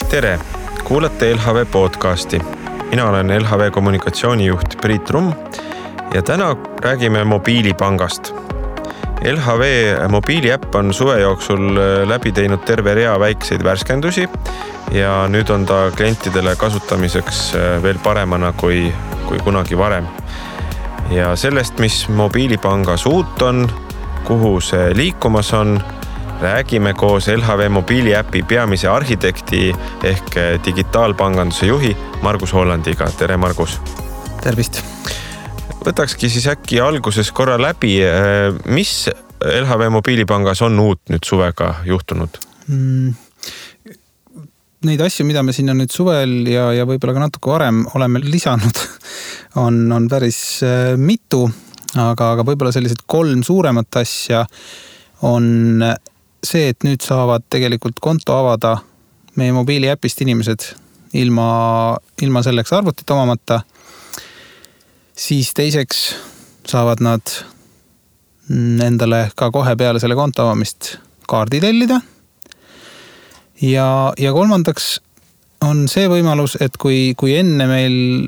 Tere! Kuulate LHV podcasti. Mina olen LHV kommunikatsioonijuht Priit Rumm ja täna räägime mobiilipangast. LHV mobiiliäpp on suve jooksul läbi teinud terve rea väikseid värskendusi ja nüüd on ta klientidele kasutamiseks veel paremana kui kunagi varem. Ja sellest, mis mobiilipangas uut on, kuhu see liikumas on, räägime koos LHV mobiiliäpi peamise arhitekti ehk digitaalpanganduse juhi Margus Hollandiga. Tere, Margus! Tervist! Võtakski siis äkki alguses korra läbi, mis LHV mobiilipangas on uut nüüd suvega juhtunud? Neid asju, mida me sinna nüüd suvel ja võib-olla ka natuke varem oleme lisanud, on päris mitu, aga võib-olla sellised 3 suuremat asja on see, et nüüd saavad tegelikult konto avada meie mobiiliäpist inimesed ilma selleks arvutit omamata. Siis teiseks saavad nad endale ka kohe peale selle konto avamist kaardi tellida. Ja kolmandaks on see võimalus, et kui enne meil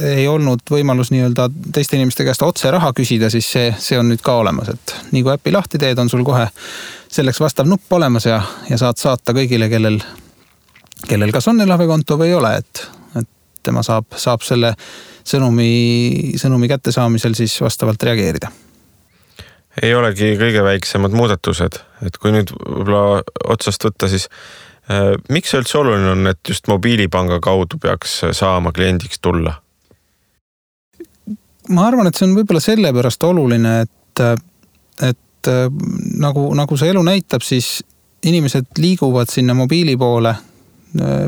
ei olnud võimalus nii-öelda teiste inimeste käest otse raha küsida, siis see on nüüd ka olemas, et nii kui äpi lahti teed, on sul kohe selleks vastav nupp olemas ja saad saata kõigile, kellel kas on LHV konto või ei ole, et tema saab selle sõnumi kättesaamisel siis vastavalt reageerida. Ei olegi kõige väiksemad muudatused, et kui nüüd võib-olla otsast võtta, siis miks see üldse oluline on, et just mobiilipanga kaudu peaks saama kliendiks tulla? Ma arvan, et see on võib-olla sellepärast oluline, et nagu see elu näitab, siis inimesed liiguvad sinna mobiili poole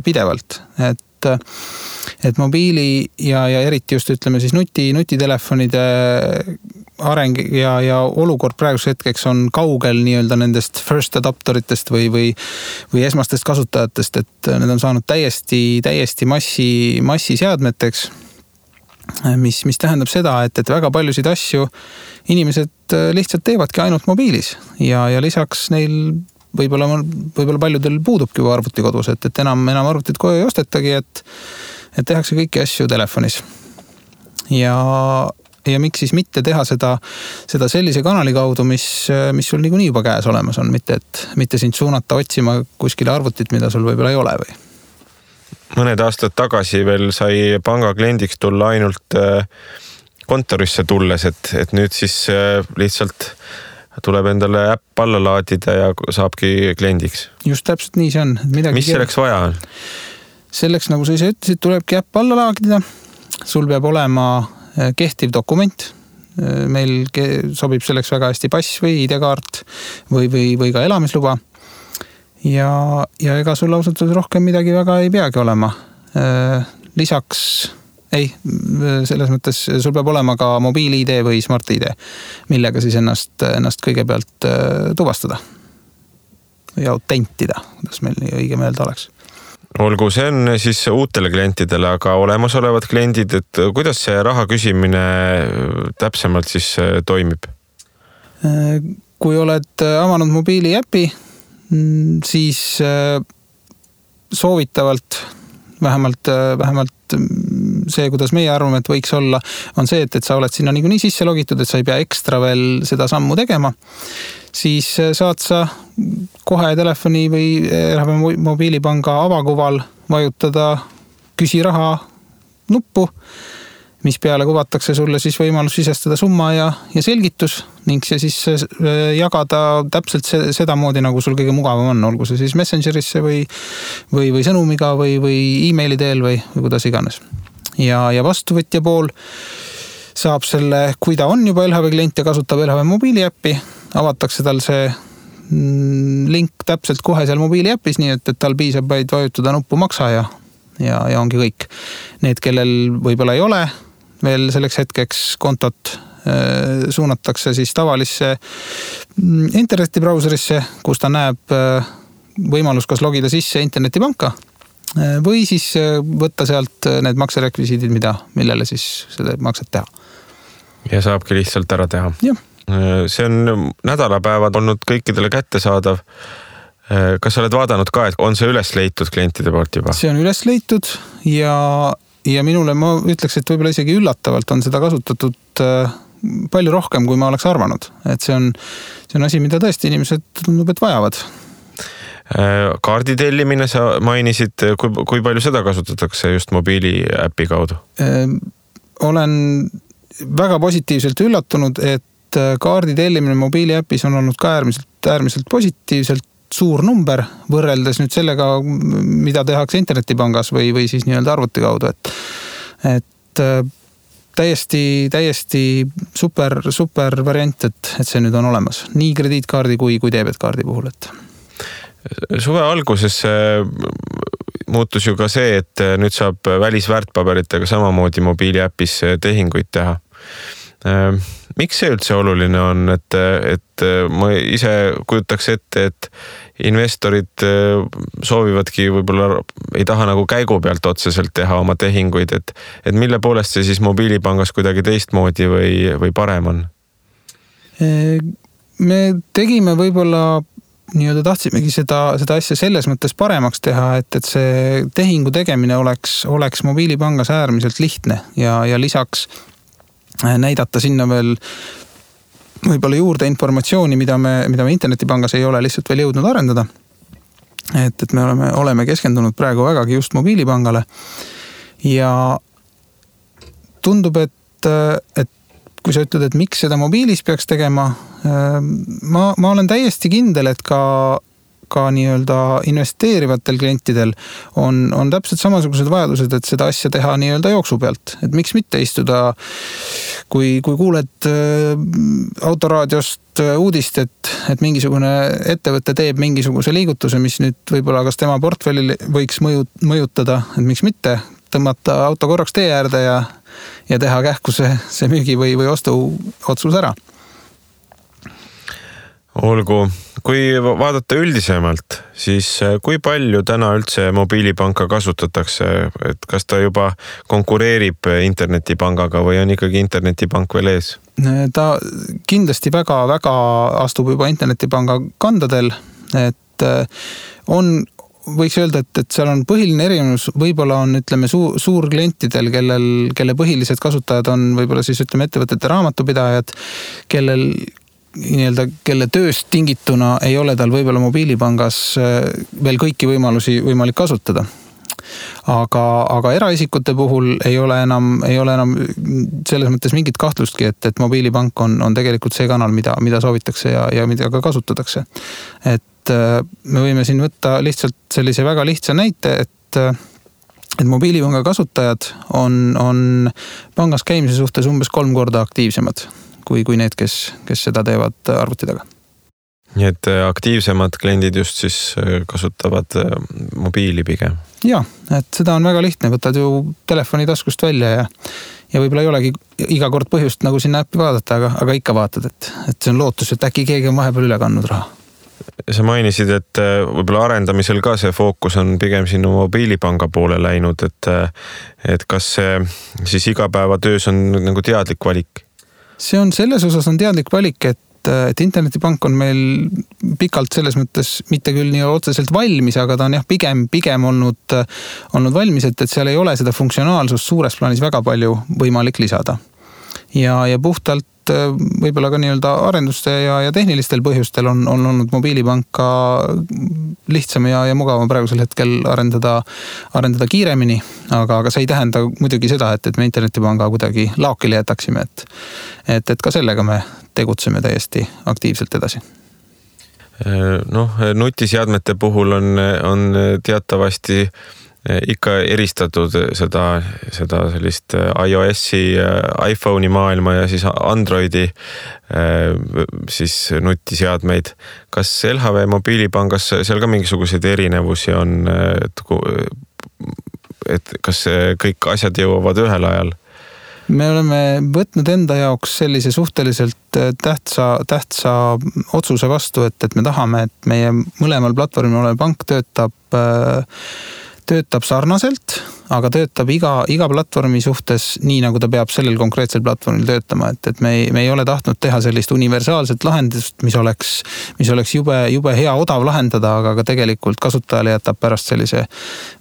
pidevalt. Et mobiili ja eriti just ütleme siis nutitelefonide areng ja olukord praeguse hetkeks on kaugel nii-öelda nendest first adopteritest või esmastest kasutajatest, et need on saanud täiesti massiseadmeteks, mis tähendab seda, et väga paljusid asju inimesed lihtsalt teevadki ainult mobiilis ja lisaks neil võib-olla paljudel puudubki arvuti kodus, et enam arvutit koju ei ostetagi, et tehakse kõiki asju telefonis. Ja miks siis mitte teha seda sellise kanali kaudu, mis sul niikuinii juba käes olemas on, mitte sind suunata otsima kuskile arvutit, mida sul võib-olla ei ole või? Mõned aastad tagasi veel sai panga kliendiks tulla ainult kontorisse tulles, et nüüd siis lihtsalt tuleb endale äpp alla laadida ja saabki kliendiks. Just täpselt nii see on. Mis selleks vaja on? Selleks, nagu sa ise ütlesid, tulebki äpp alla laadida. Sul peab olema kehtiv dokument. Meil sobib selleks väga hästi pass või ID-kaart või ka elamisluba. Ja ega sul ausalt rohkem midagi väga ei peagi olema. Lisaks selles mõttes sul peab olema ka mobiil-ID või smart-ID, millega siis ennast kõigepealt tuvastada või autentida, kuidas meil õige meelde oleks. Olgu, see on siis uutele klientidele, aga olemasolevad kliendid, et kuidas see raha küsimine täpsemalt siis toimib? Kui oled avanud mobiiliäpi, siis soovitavalt vähemalt see, kuidas meie arvame, et võiks olla, on see, et sa oled sinna niikuinii sisse logitud, et sa ei pea ekstra veel seda sammu tegema. Siis saad sa kohe telefoni või LHV mobiilipanga avakuval vajutada küsi raha nuppu, mis peale kuvatakse sulle siis võimalus sisestada summa ja selgitus ning see siis jagada täpselt seda moodi, nagu sul kõige mugavam on, olgu see siis Messengerisse või sõnumiga või e-maili teel või kuidas iganes. Ja vastuvõtja pool saab selle, kui ta on juba LHV klient ja kasutab LHV mobiiliäppi, avatakse tal see link täpselt kohe seal mobiiliäpis, nii et tal piisab vaid vajutada nuppu maksa ja ongi kõik. Need, kellel võib-olla ei ole veel selleks hetkeks kontot, suunatakse siis tavalisse internetibrauserisse, kus ta näeb võimalus kas logida sisse internetipanka või siis võtta sealt need makserekvisiidid, millele siis seda makset teha. Ja saabki lihtsalt ära teha. Jah, See on nädalapäevad olnud kõikidele kättesaadav. Kas sa oled vaadanud ka, et on see üles leitud klientide poolt juba? See on üles leitud ja minule ma ütleks, et võib-olla isegi üllatavalt on seda kasutatud palju rohkem, kui ma oleks arvanud. Et see on asi, mida tõesti inimesed tundub, et vajavad. Kaardi tellimine sa mainisid, kui palju seda kasutatakse just mobiiliäpi kaudu? Olen väga positiivselt üllatunud, et kaardi tellimine mobiiliäpis on olnud ka äärmiselt positiivselt suur number võrreldes nüüd sellega, mida tehakse internetipangas või siis nii-öelda arvuti kaudu. Et täiesti super variant, et see nüüd on olemas. Nii krediitkaardi kui debetkaardi puhul. Suve alguses muutus ju ka see, et nüüd saab välisväärtpaberitega samamoodi mobiiliäpis tehinguid teha. Miks see üldse oluline on, et ma ise kujutaks ette, et investorid soovivadki võib-olla ei taha nagu käigu pealt otseselt teha oma tehinguid, et mille poolest see siis mobiilipangas kuidagi teistmoodi või parem on? Me tegime võib-olla nii-öelda tahtsimegi seda asja selles mõttes paremaks teha, et see tehingu tegemine oleks mobiilipangas äärmiselt lihtne ja lisaks näidata sinna veel võib-olla juurde informatsiooni, mida me internetipangas ei ole lihtsalt veel jõudnud arendada. Et me oleme keskendunud praegu vägagi just mobiilipangale ja tundub, et kui sa ütled, et miks seda mobiilis peaks tegema, ma olen täiesti kindel, et ka nii-öelda investeerivatel klientidel on täpselt samasugused vajadused, et seda asja teha nii-öelda jooksu pealt. Et miks mitte istuda, kui kuuled autoraadiost uudist, et mingisugune ettevõte teeb mingisuguse liigutuse, mis nüüd võib-olla kas tema portfellil võiks mõjutada, et miks mitte tõmmata auto korraks tee äärde ja teha kähku see müügi või ostu otsus ära. Olgu, kui vaadata üldisemalt, siis kui palju täna üldse mobiilipanka kasutatakse, et kas ta juba konkureerib internetipangaga või on ikkagi internetipank veel ees? Ta kindlasti väga astub juba internetipanga kandadel, et võiks öelda, et seal on põhiline erinevus, võib-olla on, ütleme, suurklientidel, kelle põhilised kasutajad on võib-olla siis, ütleme, ettevõtete raamatupidajad, kelle tööst tingituna ei ole tal võib-olla mobiilipangas veel kõiki võimalusi võimalik kasutada. Aga eraisikute puhul ei ole enam selles mõttes mingit kahtlustki, et mobiilipank on tegelikult see kanal, mida soovitakse ja mida ka kasutatakse. Et me võime siin võtta lihtsalt sellise väga lihtsa näite, et mobiilipanga kasutajad on pangas käimise suhtes umbes 3 korda aktiivsemad kui need, kes seda teevad arvuti taga. Nii et aktiivsemad kliendid just siis kasutavad mobiili pigem? Jaa, et seda on väga lihtne, võtad ju telefoni taskust välja ja võib-olla ei olegi iga kord põhjust nagu sinna äppi vaadata, aga ikka vaatad, et see on lootus, et äkki keegi on vahepeal üle kandnud raha. Sa mainisid, et võib-olla arendamisel ka see fookus on pigem sinu mobiilipanga poole läinud, et kas see siis igapäevatöös on nagu teadlik valik? See on selles osas on teadlik valik, et internetipank on meil pikalt selles mõttes mitte küll nii otseselt valmis, aga ta on pigem olnud valmis, et seal ei ole seda funktsionaalsust suures plaanis väga palju võimalik lisada. Ja puhtalt võib-olla ka nii-öelda arenduste ja tehnilistel põhjustel on olnud mobiilipanka lihtsam ja mugavam praegusel hetkel arendada kiiremini, aga see ei tähenda muidugi seda, et me internetipanga kuidagi laokile jätaksime, et ka sellega me tegutseme täiesti aktiivselt edasi. Nutiseadmete puhul on teatavasti ikka eristatud seda sellist iOS-i, iPhone'i maailma ja siis Androidi siis nutiseadmeid. Kas LHV mobiilipangas seal ka mingisuguseid erinevusi on, et kas kõik asjad jõuavad ühel ajal? Me oleme võtnud enda jaoks sellise suhteliselt tähtsa otsuse vastu, et me tahame, et meie mõlemal platvormil olev pank töötab töötab sarnaselt, aga töötab iga platvormi suhtes nii, nagu ta peab sellel konkreetsel platvormil töötama, et me ei ole tahtnud teha sellist universaalset lahendust, mis oleks jube hea odav lahendada, aga ka tegelikult kasutajale jätab pärast sellise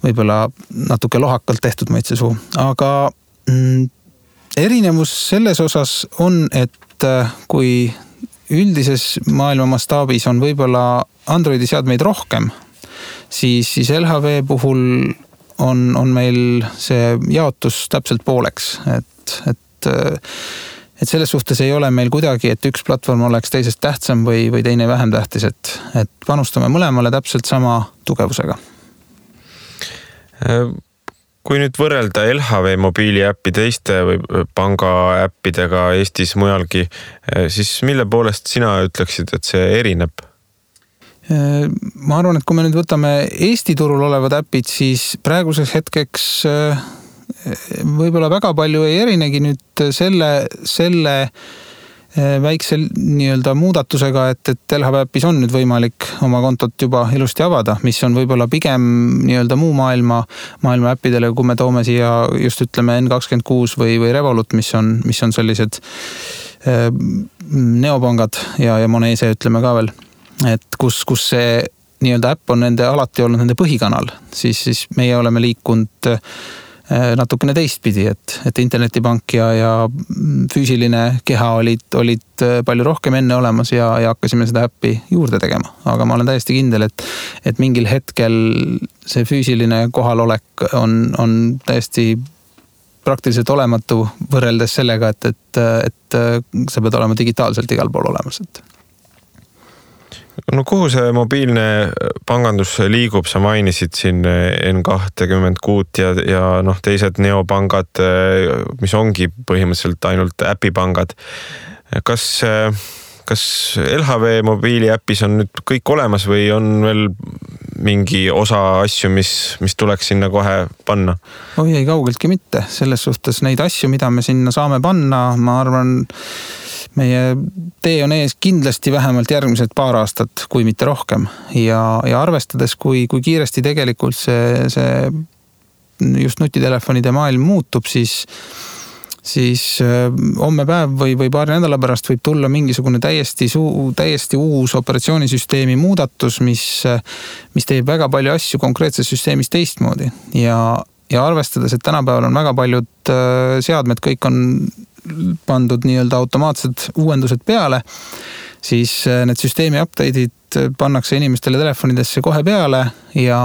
võib-olla natuke lohakalt tehtud maitsesuu. Aga erinevus selles osas on, et kui üldises maailma mastaabis on võib-olla Androidi seadmeid rohkem, siis LHV puhul on meil see jaotus täpselt pooleks, et selles suhtes ei ole meil kuidagi, et üks platvorm oleks teisest tähtsam või teine vähem tähtis, et panustame mõlemale täpselt sama tugevusega. Kui nüüd võrrelda LHV mobiiliäppi teiste või panga äppidega Eestis mujalgi, siis mille poolest sina ütleksid, et see erineb? Ma arvan, et kui me nüüd võtame Eesti turul olevad äpid, siis praeguseks hetkeks võib-olla väga palju ei erinegi nüüd selle väikse nii-öelda muudatusega, et LHV äppis on nüüd võimalik oma kontot juba ilusti avada, mis on võib-olla pigem nii-öelda muu maailma äppidele, kui me toome siia just ütleme N26 või Revolut, mis on sellised neopangad ja Monese ütleme ka veel, et kus see nii-öelda äpp on alati olnud nende põhikanal, siis meie oleme liikunud natukene teistpidi, et internetipank ja füüsiline keha olid palju rohkem enne olemas ja hakkasime seda äppi juurde tegema. Aga ma olen täiesti kindel, et mingil hetkel see füüsiline kohalolek on täiesti praktiliselt olematu võrreldes sellega, et sa pead olema digitaalselt igal pool olemas. No kuhu see mobiilne pangandus liigub? Sa mainisid siin N26 ja teised neopangad, mis ongi põhimõtteliselt ainult äpipangad. Kas LHV mobiiliäpis on nüüd kõik olemas või on veel mingi osa asju, mis tuleks sinna kohe panna? Oi, ei kaugeltki mitte. Selles suhtes neid asju, mida me sinna saame panna, ma arvan, meie tee on ees kindlasti vähemalt järgmised paar aastat, kui mitte rohkem. Ja arvestades, kui kiiresti tegelikult see just nutitelefonide maailm muutub, siis homme päev või paari nädala pärast võib tulla mingisugune täiesti uus operatsioonisüsteemi muudatus, mis teeb väga palju asju konkreetses süsteemis teistmoodi. Ja arvestades, et tänapäeval on väga paljud seadmed, kõik on pandud nii-öelda automaatsed uuendused peale, siis need süsteemi update'id pannakse inimestele telefonidesse kohe peale ja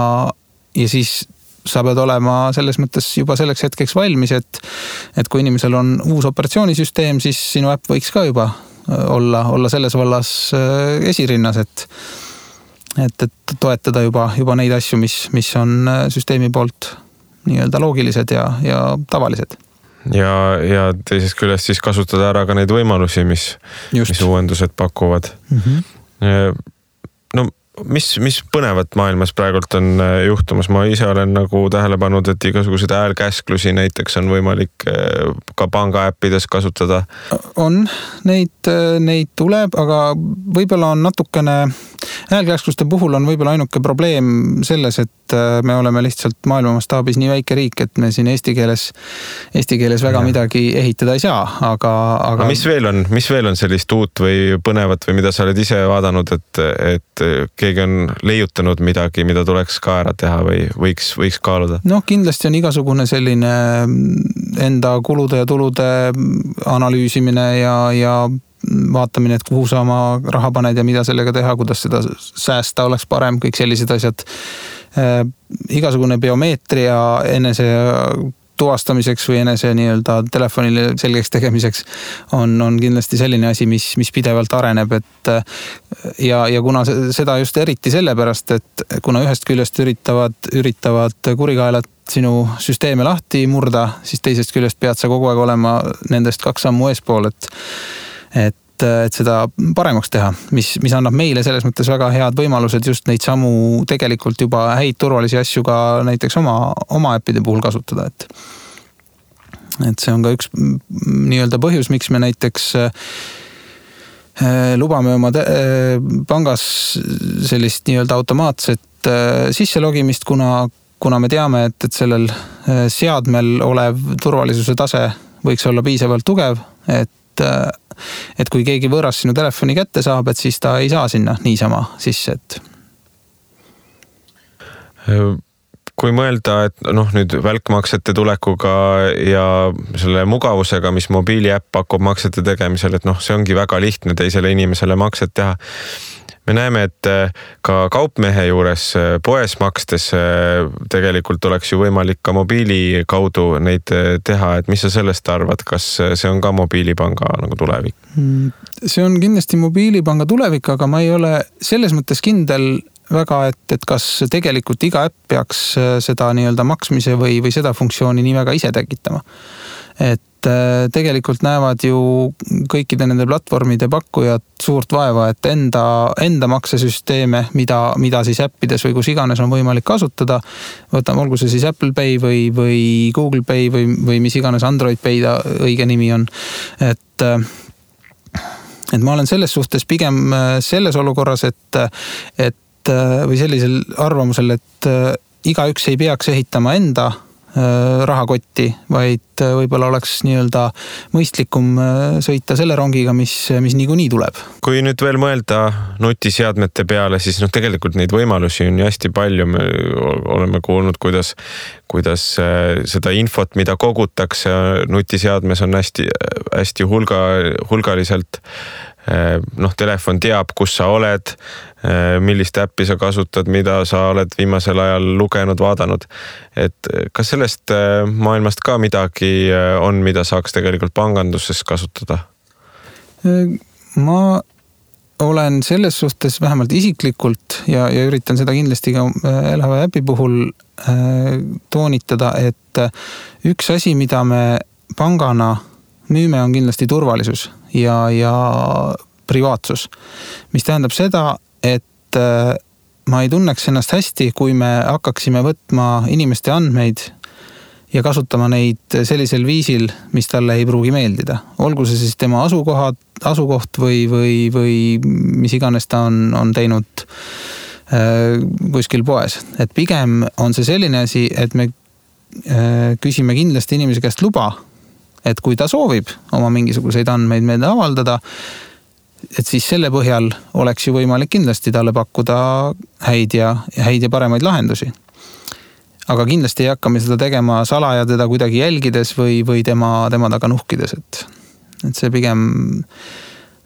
siis sa pead olema selles mõttes juba selleks hetkeks valmis, et kui inimesel on uus operatsioonisüsteem, siis sinu äpp võiks ka juba olla selles vallas esirinnas, et toetada juba neid asju, mis on süsteemi poolt nii-öelda loogilised ja tavalised. Ja teisest küljest siis kasutada ära ka neid võimalusi, mis uuendused pakuvad. Mm-hmm. No mis põnevat maailmas praegult on juhtumas? Ma ise olen nagu tähele pannud, et igasugused häälkäsklusi näiteks on võimalik ka panga äppides kasutada. On, neid tuleb, aga võib-olla on natukene häälkäskluste puhul on võib-olla ainuke probleem selles, et me oleme lihtsalt maailma mastaabis nii väike riik, et me siin eesti keeles väga midagi ehitada ei saa, aga mis veel on sellist uut või põnevat või mida sa oled ise vaadanud, et keegi on leiutanud midagi, mida tuleks ka ära teha või võiks kaaluda? Kindlasti on igasugune selline enda kulude ja tulude analüüsimine ja vaatamine, et kuhu sa oma raha paned ja mida sellega teha, kuidas seda säästa oleks parem, kõik sellised asjad. Igasugune biomeetria enese tuvastamiseks või enese nii-öelda telefonile selgeks tegemiseks on kindlasti selline asi, mis pidevalt areneb, ja kuna seda just eriti sellepärast, et kuna ühest küljest üritavad kurikaelad sinu süsteeme lahti murda, siis teisest küljest pead sa kogu aeg olema nendest 2 sammu eespool, et seda paremaks teha, mis annab meile selles mõttes väga head võimalused just neid samu tegelikult juba häid turvalisi asju ka näiteks oma äppide puhul kasutada, et see on ka üks nii-öelda põhjus, miks me näiteks lubame oma pangas sellist nii-öelda automaatset sisselogimist, kuna kuna me teame, et sellel seadmel olev turvalisuse tase võiks olla piisavalt tugev, et kui keegi võõras sinu telefoni kätte saab, et siis ta ei saa sinna niisama sisse, et kui mõelda, et nüüd välkmaksete tulekuga ja selle mugavusega, mis mobiiliäpp pakub maksete tegemisel, et see ongi väga lihtne teisele inimesele makset teha. Me näeme, et ka kaupmehe juures poes makstes tegelikult oleks ju võimalik ka mobiili kaudu neid teha, et mis sa sellest arvad, kas see on ka mobiilipanga nagu tulevik? See on kindlasti mobiilipanga tulevik, aga ma ei ole selles mõttes kindel väga, et kas tegelikult iga äpp peaks seda nii-öelda maksmise või seda funktsiooni nii väga ise tekitama. Et tegelikult näevad ju kõikide nende platvormide pakkujad suurt vaeva, et enda maksesüsteeme, mida siis äppides või kus iganes on võimalik kasutada, võtame olgu see siis Apple Pay või Google Pay või mis iganes Android Pay õige nimi on, et ma olen selles suhtes pigem selles olukorras, või sellisel arvamusel, et igaüks ei peaks ehitama enda rahakotti, vaid võib-olla oleks nii-öelda mõistlikum sõita selle rongiga, mis niikuinii tuleb. Kui nüüd veel mõelda nutiseadmete peale, siis tegelikult neid võimalusi on hästi palju. Me oleme kuulnud, kuidas seda infot, mida kogutakse nutiseadmes on hästi hulgaliselt. Telefon teab, kus sa oled, millist äppi sa kasutad, mida sa oled viimasel ajal lugenud, vaadanud. Et kas sellest maailmast ka midagi on, mida saaks tegelikult panganduses kasutada? Ma olen selles suhtes vähemalt isiklikult ja üritan seda kindlasti ka LHV äpi puhul toonitada, et üks asi, mida me pangana müüme, on kindlasti turvalisus ja privaatsus, mis tähendab seda, et ma ei tunneks ennast hästi, kui me hakkaksime võtma inimeste andmeid ja kasutama neid sellisel viisil, mis talle ei pruugi meeldida. Olgu see siis tema asukoht või mis iganes ta on teinud kuskil poes. Et pigem on see selline asi, et me küsime kindlasti inimese käest luba, et kui ta soovib oma mingisuguseid andmeid meelde avaldada, et siis selle põhjal oleks ju võimalik kindlasti talle pakkuda häid ja paremaid lahendusi. Aga kindlasti ei hakka me seda tegema salaja teda kuidagi jälgides või tema taga nuhkides, et see pigem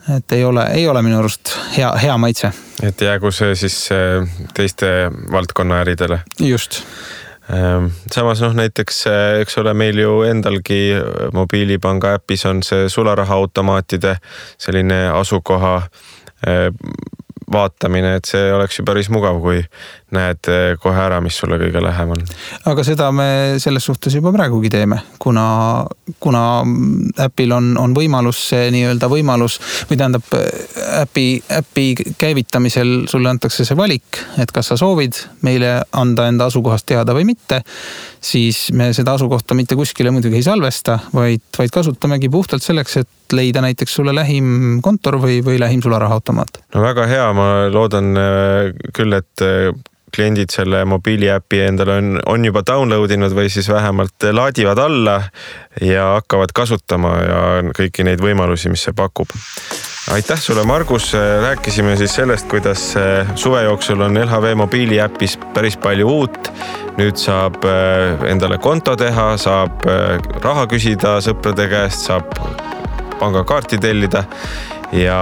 et ei ole minu arust hea maitse. Et jäägu see siis teiste valdkonna äridele. Just. Samas näiteks, eks ole, meil ju endalgi mobiilipanga äpis on see sularahaautomaatide selline asukoha vaatamine, et see oleks ju päris mugav, kui näed kohe ära, mis sulle kõige lähem on. Aga seda me selles suhtes juba praegugi teeme, kuna äpil on võimalus see nii-öelda võimalus, või tähendab äpi käivitamisel sulle antakse see valik, et kas sa soovid meile anda enda asukohast teada või mitte, siis me seda asukohta mitte kuskile muidugi ei salvesta, vaid kasutamegi puhtalt selleks, et leida näiteks sulle lähim kontor või lähim sularahaautomaat. No väga hea, ma loodan küll, et kliendid selle mobiiliäpi endale on juba downloadinud või siis vähemalt laadivad alla ja hakkavad kasutama ja kõiki neid võimalusi, mis see pakub. Aitäh sulle, Margus. Rääkisime siis sellest, kuidas suve jooksul on LHV mobiiliäpis päris palju uut. Nüüd saab endale konto teha, saab raha küsida sõprade käest, saab pangakaarti tellida ja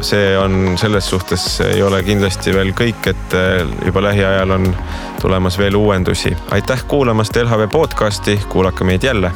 see on selles suhtes ei ole kindlasti veel kõik, et juba lähiajal on tulemas veel uuendusi. Aitäh kuulamast LHV podcasti, kuulake meid jälle!